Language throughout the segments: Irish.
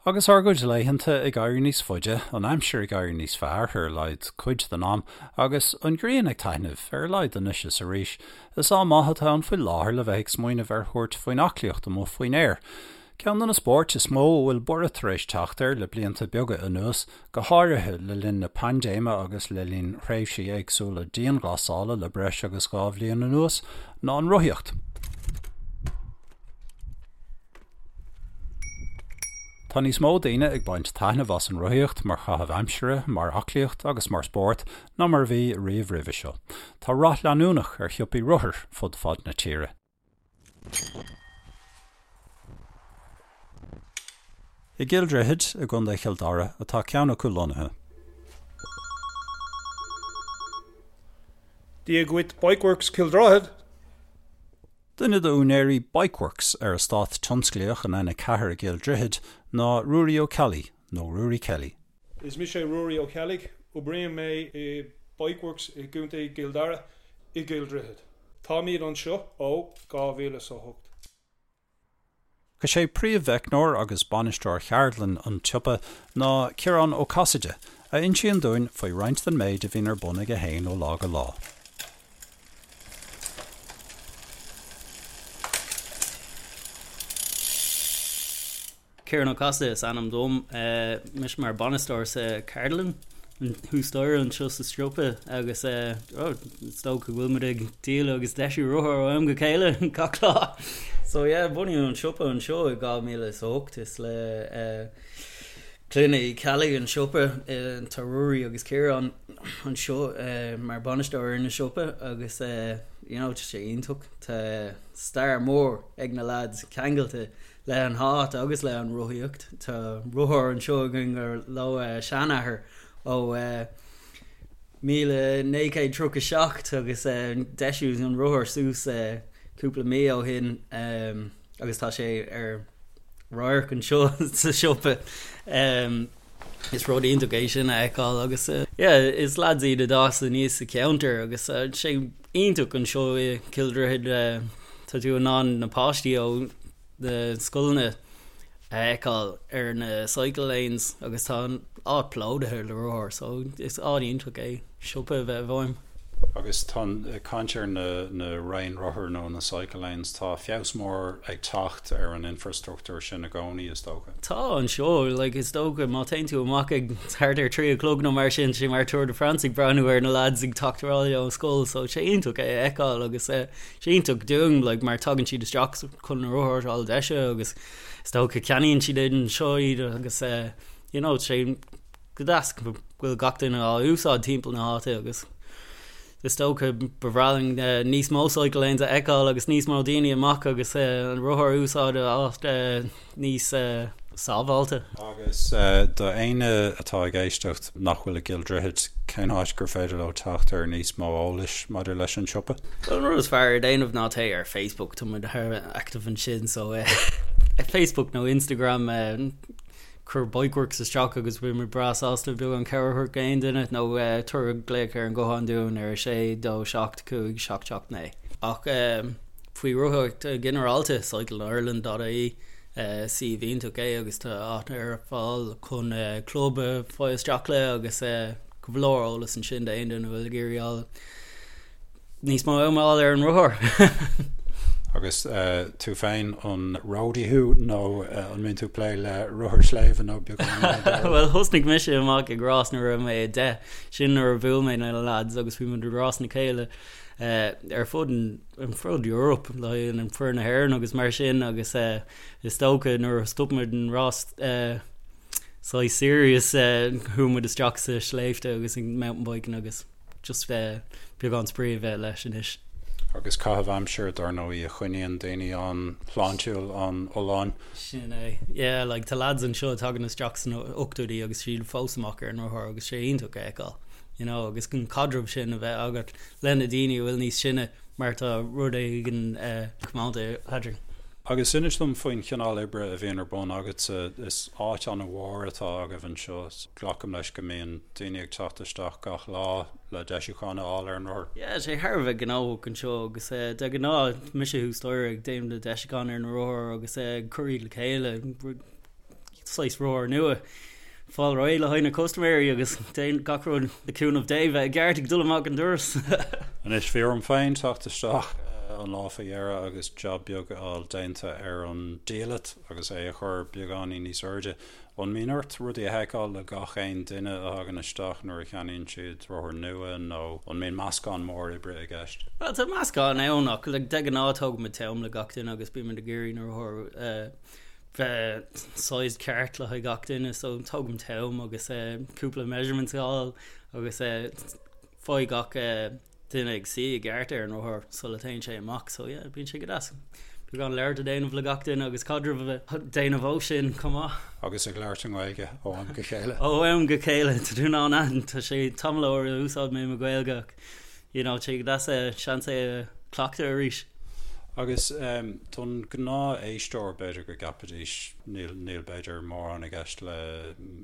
Agus ár gcuid laethanta ag éirí níos faide, an aimsir ag éirí níos fearr, ar a laghad cuid den am, agus an ghrian ag taitneamh, ar a laghad anois is arís, is am maith atá ann faoi láthair le bheith ag smaoineamh ar thabhairt faoin aclaíocht amuigh faoin aer. Ceann de na spóirt is mó a bhfuil borradh tar éis teacht air le blianta beaga anuas, go háirithe le linn na paindéime agus le linn thréimhsí éagsúla dianghlasála le breis agus 2 bhliain anuas, ná an rothaíocht. Tá níos mó daoine ag baint taitneamh as an rothaíocht mar chaitheamh aimsire, mar aclaíocht agus mar spórt ná mar a bhí riamh roimhe seo. Tá rath leanúnach ar shiopaí rothair fud fad na tíre. I gCill Droichid i gContae Chill Dara atá ceann acu lonnaithe. Dia dhuit Bikeworks Cill Droichead! Duine d'úinéirí Bikeworks ar eastát tionsclaíoch an N4 i gCill Droichid ná Ruairí Ó Ceallaigh, nó Ruairí Kelly. Is mise Ruairí Ó Ceallaigh, oibrím mé i Bikeworks i gContae Chill Dara i gCill Droichid. Táimid anseo ó 2008. Is é príomh-mheicneoir agus bainisteoir cheardlann an tsiopa ná Ciarán Ó Casaide, a insíonn dúinn faoi roinnt den méid a bhíonn ar bun aige féin ó lá go lá. Ciarán Ó Casaide is ainm dom. Mise mar bainisteoir sa cheardlann thuas staighre anseo sa siopa agus is dócha go bhfuil muid ag díol agus deisiú rothar ó am go chéile gach lá. So yeah, bunaíodh an siopa anseo i 2008 is le Clann Uí Cheallaigh an siopa tá Ruairí agus Ciarán anseo mar bainisteoir ar na siopa agus you know tá sé iontach. Tá stair mór ag na lads ceangailte le an háit agus le an rothaíocht. Tá rothar anseo againn gur leo seanathair ó 1937 agus deisíodh an rothar suas cúpla mí ó shin agus tá sé ar radharc anseo sa siopa. Is rud iontach é sin a fheiceáil agus yeah is lads iad a d'fhás aníos sa cheantar agus sé iontach anseo i Cill Droichid tá tú in ann na páistí ó na scoileanna a fheiceáil ar na cycle lanes agus tá an áit plódaithe le rothair so is áit iontach é siopa a bheith i bhfeidhm. Agus tá ag caint ar na na raon rothar nó na cycle lanes, tá feabhas mór ag teacht ar an infrastruchtúr sin i gcónaí, is dócha. Tá anseo, like is dócha má téann tú amach ag thart ar 3 a chlog nó mar sin, sé mar Tour de France ag breathnú ar na lads ag teacht abhaile ón scoil so sé iontach é a fheiceáil agus eh, sé iontach dúinn like mar tagann siad isteach chun na rothair a fháil deisithe agus is dócha ceannaíonn siad anseo iad agus eh, you know sé go deas go bhfuil gach duine á úsáid timpeall na háite agus is dócha ba bhreá linn eh, níos mó cycle lanes a fheiceáil agus níos mó daoine amach agus eh, an rothar a úsáid áit eh, níos eh, sábháilte. Agus do éinne atá ag éisteacht nach bhfuil i gCill Droichid, cén áit gur féidir leo teacht ar níos mó eolais maidir leis an siopa? Bhuel an rud is fearr a déanamh ná téigh ar Facebook, tá muid thar a bheith active ansin so eh, Facebook nó Instagram eh, cuir Bikeworks isteach agus beidh muid breá sásta beagán cabhair a thabhairt d'aon duine nó tabhair glaoch ar an guthán dúinn ar 6 2 7 5 7 7 9. Ach faoi rothaíocht ginearálta, cycleireland.ie suíomh iontach é agus tá áit ar fáil chun club a fáil isteach le agus go leor eolas ansin d'aon duine a bhfuil ag iarraidh fháil níos mó ama a fháil ar an rothar. Agus tú féin, an roadie thú nó an mbíonn tú ag plé le rothair sléibhe nó beagán eile dó? Bhuel, thosnaigh mise amach ag rás nuair a raibh mé 10. Sin nuair a bhuail mé na lads agus bhí muid ag rás le chéile ar fud an fud Europe le an foireann na hÉireann agus mar sin agus is dócha nuair a stop muid an rás saghas serious chuaigh muid isteach sa sléibhte agus ag mountain biking agus just beagán spraoi a bheith leis anois. Agus caitheamh aimsire, dar ndóigh, a choinníonn daoine an-shláintiúil, an-fholláin. Sin é. Yeah, like tá lads anseo a tagann isteach sna ochtóidí agus siad fós amach ar an rothar agus sé iontach a fheiceáil, you know, agus an caidreamh sin a bheith agat le na daoine a bhfuil níos sine mar tá rud éigin comónta eadrainn. Agus inis dom faoin chineál oibre a bhíonn ar bun agatsa. Is áit an-mhór atá agaibh anseo. Glacaim leis go mbíonn daoine ag teacht isteach gach lá le deisiúchán a fháil ar an rothar. Yeah, sé thar a bheith gnóthach anseo agus de ghnáth mise thuas staighre ag déanamh na deisiúcháin ar na rothair agus ag cur iad le chéile. saghas rothar nua fáil réidh le haghaidh na custaiméirí agus déan gach rud le cúnamh Dé bheith i gceart ag dul amach an doras. Anois bhí orm féin teacht isteach an lá faoi dheireadh agus jab beag a fháil déanta ar an diallait agus é a chur beagáinín níos airde. An mbíonn ort rudaí a sheiceáil le gach aon duine a thagann isteach nuair a cheannaíonn siad rothar nua nó an mbíonn meascán mór oibre i gceist? Bhuel tá meascán ann ach like de ghnáth tógaimid t-am le gach duine agus bímid ag iarraidh na rothair bheith sized ceart le haghaidh gach duine so tógaim t-am agus cúpla measurements a fháil agus faigh gach duine ag suí i gceart ar an rothar sula téann sé amach so yeah bíonn sé go deas beagán labhairt a déanamh le gach duine agus caidreamh a déanamh ó sin chomh maith. Agus ag labhairt i nGaeilge ó am go chéile. Ó am go chéile tá tú in ann aithint tá sé tamall ó úsáid mé mo Ghaeilge ach you know, tá sé go deas seans é a chleachtadh arís. Agus don ghnáth-éisteoir, b'fhéidir go gceapfaidís, níl, níl b'fhéidir mórán i gceist le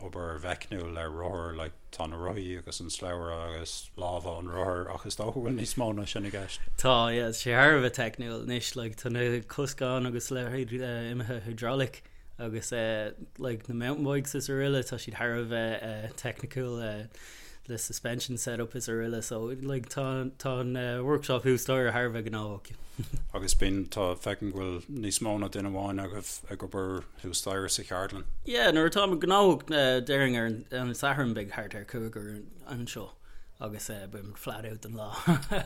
obair mheicniúil ar rothar, like tá na rothaí agus an slabhra agus lámha an rothair ach is dócha go bhfuil níos mó ná sin i gceist. Tá, yeah, tá sé thar a bheith teicniúil anois, like tá na coscáin agus leithéid imithe hydraulic agus like na mountain bikes is araile, tá siad thar a bheith teicniúil. le suspension setup is araile so like tá tá an workshop thuas staighre thar a bheith gnóthach. Agus bíonn tá feicim go bhfuil níos mó ná duine amháin agaibh ag obair thuas staighre sa cheardlann. Yeah nuair atá muid gnóthach déarfainn ar an Satharn beidh thart ar chúigear anseo agus beidh muid flat out don lá.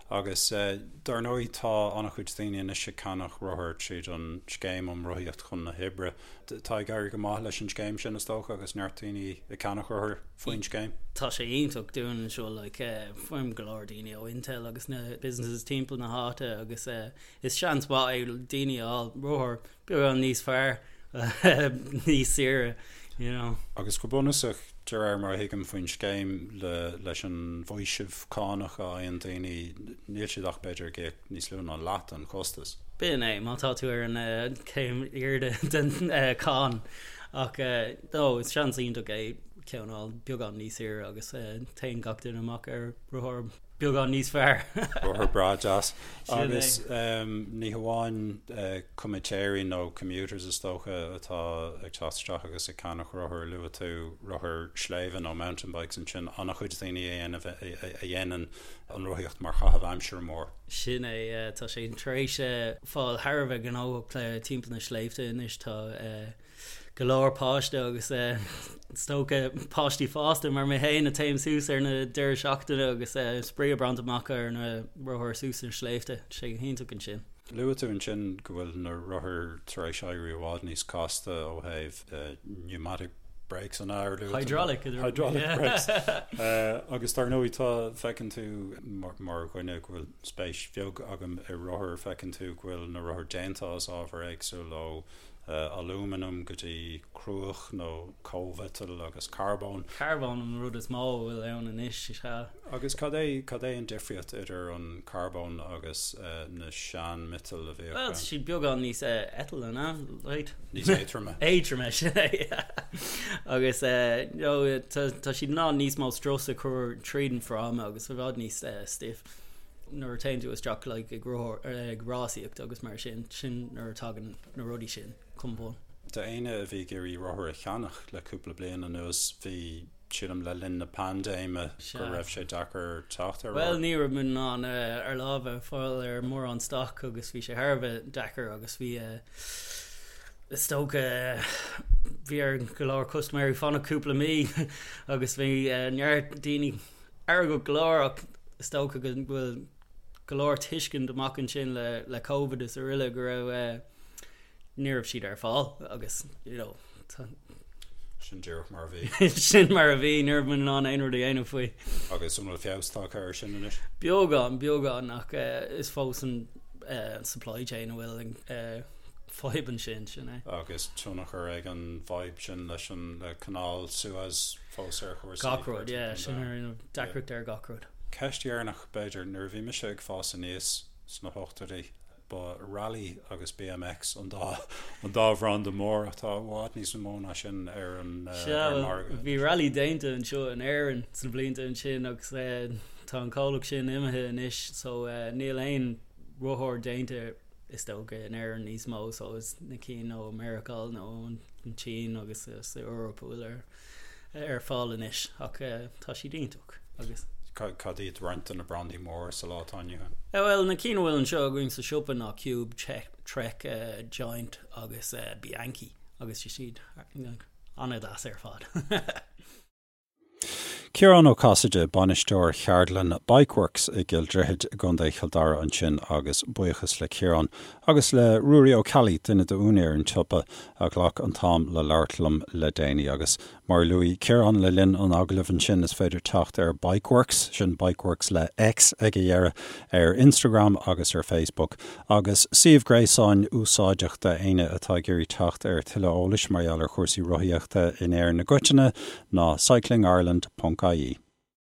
Agus dar ndóigh tá an-chuid daoine anois ag ceannach rothar tríd an scéim um Rothaíocht chun na hOibre. Tá ag éirí go maith leis an scéim sin is dócha agus neart daoine ag ceannach rothar faoin scéim. Tá sé iontach dúinn anseo like faighim go leor daoine ó Intel agus na businesses timpeall na háite agus is seans mhaith é daoine a fháil rothar beagán níos fearr níos saoire you know. Agus go bunúsach de réir mar a thuigim faoin scéim le leis an bhfaoiseamh cánach a fhaigheann daoine níl siad ach b'fhéidir ag íoc níos lú ná leath den chostas. B'in é, má tá tú ar an chéim airde den cháin. Ach no, is seans iontach é ceann a fháil beagán níos saoire agus téann gach duine amach ar rothar beagán níos fearr. Rothar breá deas. Agus ní hamháin comaitéirí nó commuters is dócha atá ag teacht isteach agus ag ceannach rothar, luaigh tú rothair sléibhe nó mountain bikes ansin, an-chuid daoine a dhéanann an rothaíocht mar chaitheamh aimsire mór. Sin é, tá sé tar éis fáil thar a bheith gnóthach le timpeall na sléibhte anois. Tá go leor páiste agus is dócha páistí fásta mar mé féin a téim suas ar na deireadh seachtaine agus spraoi a bhaint amach ar na rothair suas na sléibhte. Tá sé go hiontach ansin. Luaigh tú ansin go bhfuil na rothair tar éis éirí i bhfad níos casta ó thaobh pneumatic brakes an ea? Hydraulic. Hydraulic brakes. Agus dar ndóigh tá, feiceann tú mar dhuine go bhfuil spéis bheag agam i rothair, feiceann tú go bhfuil na rothair déanta as ábhar éagsúil ó alúmanam go dtí cruach nó cóimhiotal agus carbón. Carbón an rud is mó a bhfuil ann anois, is ea. Agus cad é, cad é an difríocht idir an carbón agus na sean-mhiotail a bhíodh Bhuel, tá siad beagán níos eitle, an ea? Right? Níos éadroime. Éadroime, sin é, yeah. Agus you know, tá, tá siad in ann níos mó strus a chur tríd an fráma agus i bhfad níos stiff nuair a téann tú isteach like ag rothar, ag rásaíocht agus mar sin, sin nuair a tagann na rudaí sin chun bun. D'éinne a bhí ag iarraidh rothar a cheannach le cúpla bliain anuas, bhí, sílim le linn na paindéime go raibh sé deacair teacht ar rothar. Bhuel, ní raibh muid in ann ár lámha a fháil ar mórán stoc agus bhí sé thar a bheith deacair agus bhí, is dócha, bhí ar go leor custaiméirí fanacht cúpla mí agus bhí neart daoine feargach go leor ach is dócha go bhfuil go leor tuiscint amach ansin le le Covid is araile go raibh ní raibh siad ar fáil agus you know tá Sin díreach mar a bhí. Sin mar a bhí, ní raibh muid in ann aon rud a dhéanamh faoi. Agus an bhfuil feabhas tagtha air sin anois? Beagán, beagán ach is fós an supply chain a bhfuil an fadhb ansin, sin é. Agus tionchar ag an bhfadhb sin leis an le Canáil Suez fós ar chúrsaí. Gach rud, yeah, sin ar deacracht ar gach rud. Ceist dheireanach b'fhéidir, nuair a bhí mise ag fás aníos sna hochtóidí, ba Raleigh agus BMX an dá an dá bhranda mór ach tá i bhfad níos mó ná sin ar an margadh. Bhí Raleigh déanta anseo in Éirinn sna blianta ansin agus tá an comhlacht sin imithe anois so níl aon rothar déanta. Is dócha in Éirinn níos mó so is na cinn ó Meiriceá nó an tSín agus sa Eoraip a bhfuil ar ar fáil anois ach tá siad iontach agus. Cad iad roinnt de na brandaí móra sa lá atá inniu ann? Bhuel na cinn a bhfuil anseo againn sa siopa ná Cube, Trek, Giant agus Bianchi agus tá siad an-deas ar fad. Ciarán Ó Casaide, bainisteoir cheardlann Bikeworks i gCill Droichid i gContae Chill Dara ansin agus buíochas le Ciarán agus le Ruairí Ó Ceallaigh, duine d'úinéir an tsiopa, a ghlac an t-am le labhairt liom le déanaí. Agus mar a luaigh Ciarán le linn an agallaimh ansin, is féidir teacht ar Bikeworks, sin Bikeworks le X ag a dheireadh, ar Instagram agus ar Facebook. Agus suíomh gréasáin úsáideach d'éinne atá ag iarraidh teacht ar tuilleadh eolais mar gheall ar chúrsaí rothaíochta in Éirinn i gcoitinne ná cyclingireland ponc ie.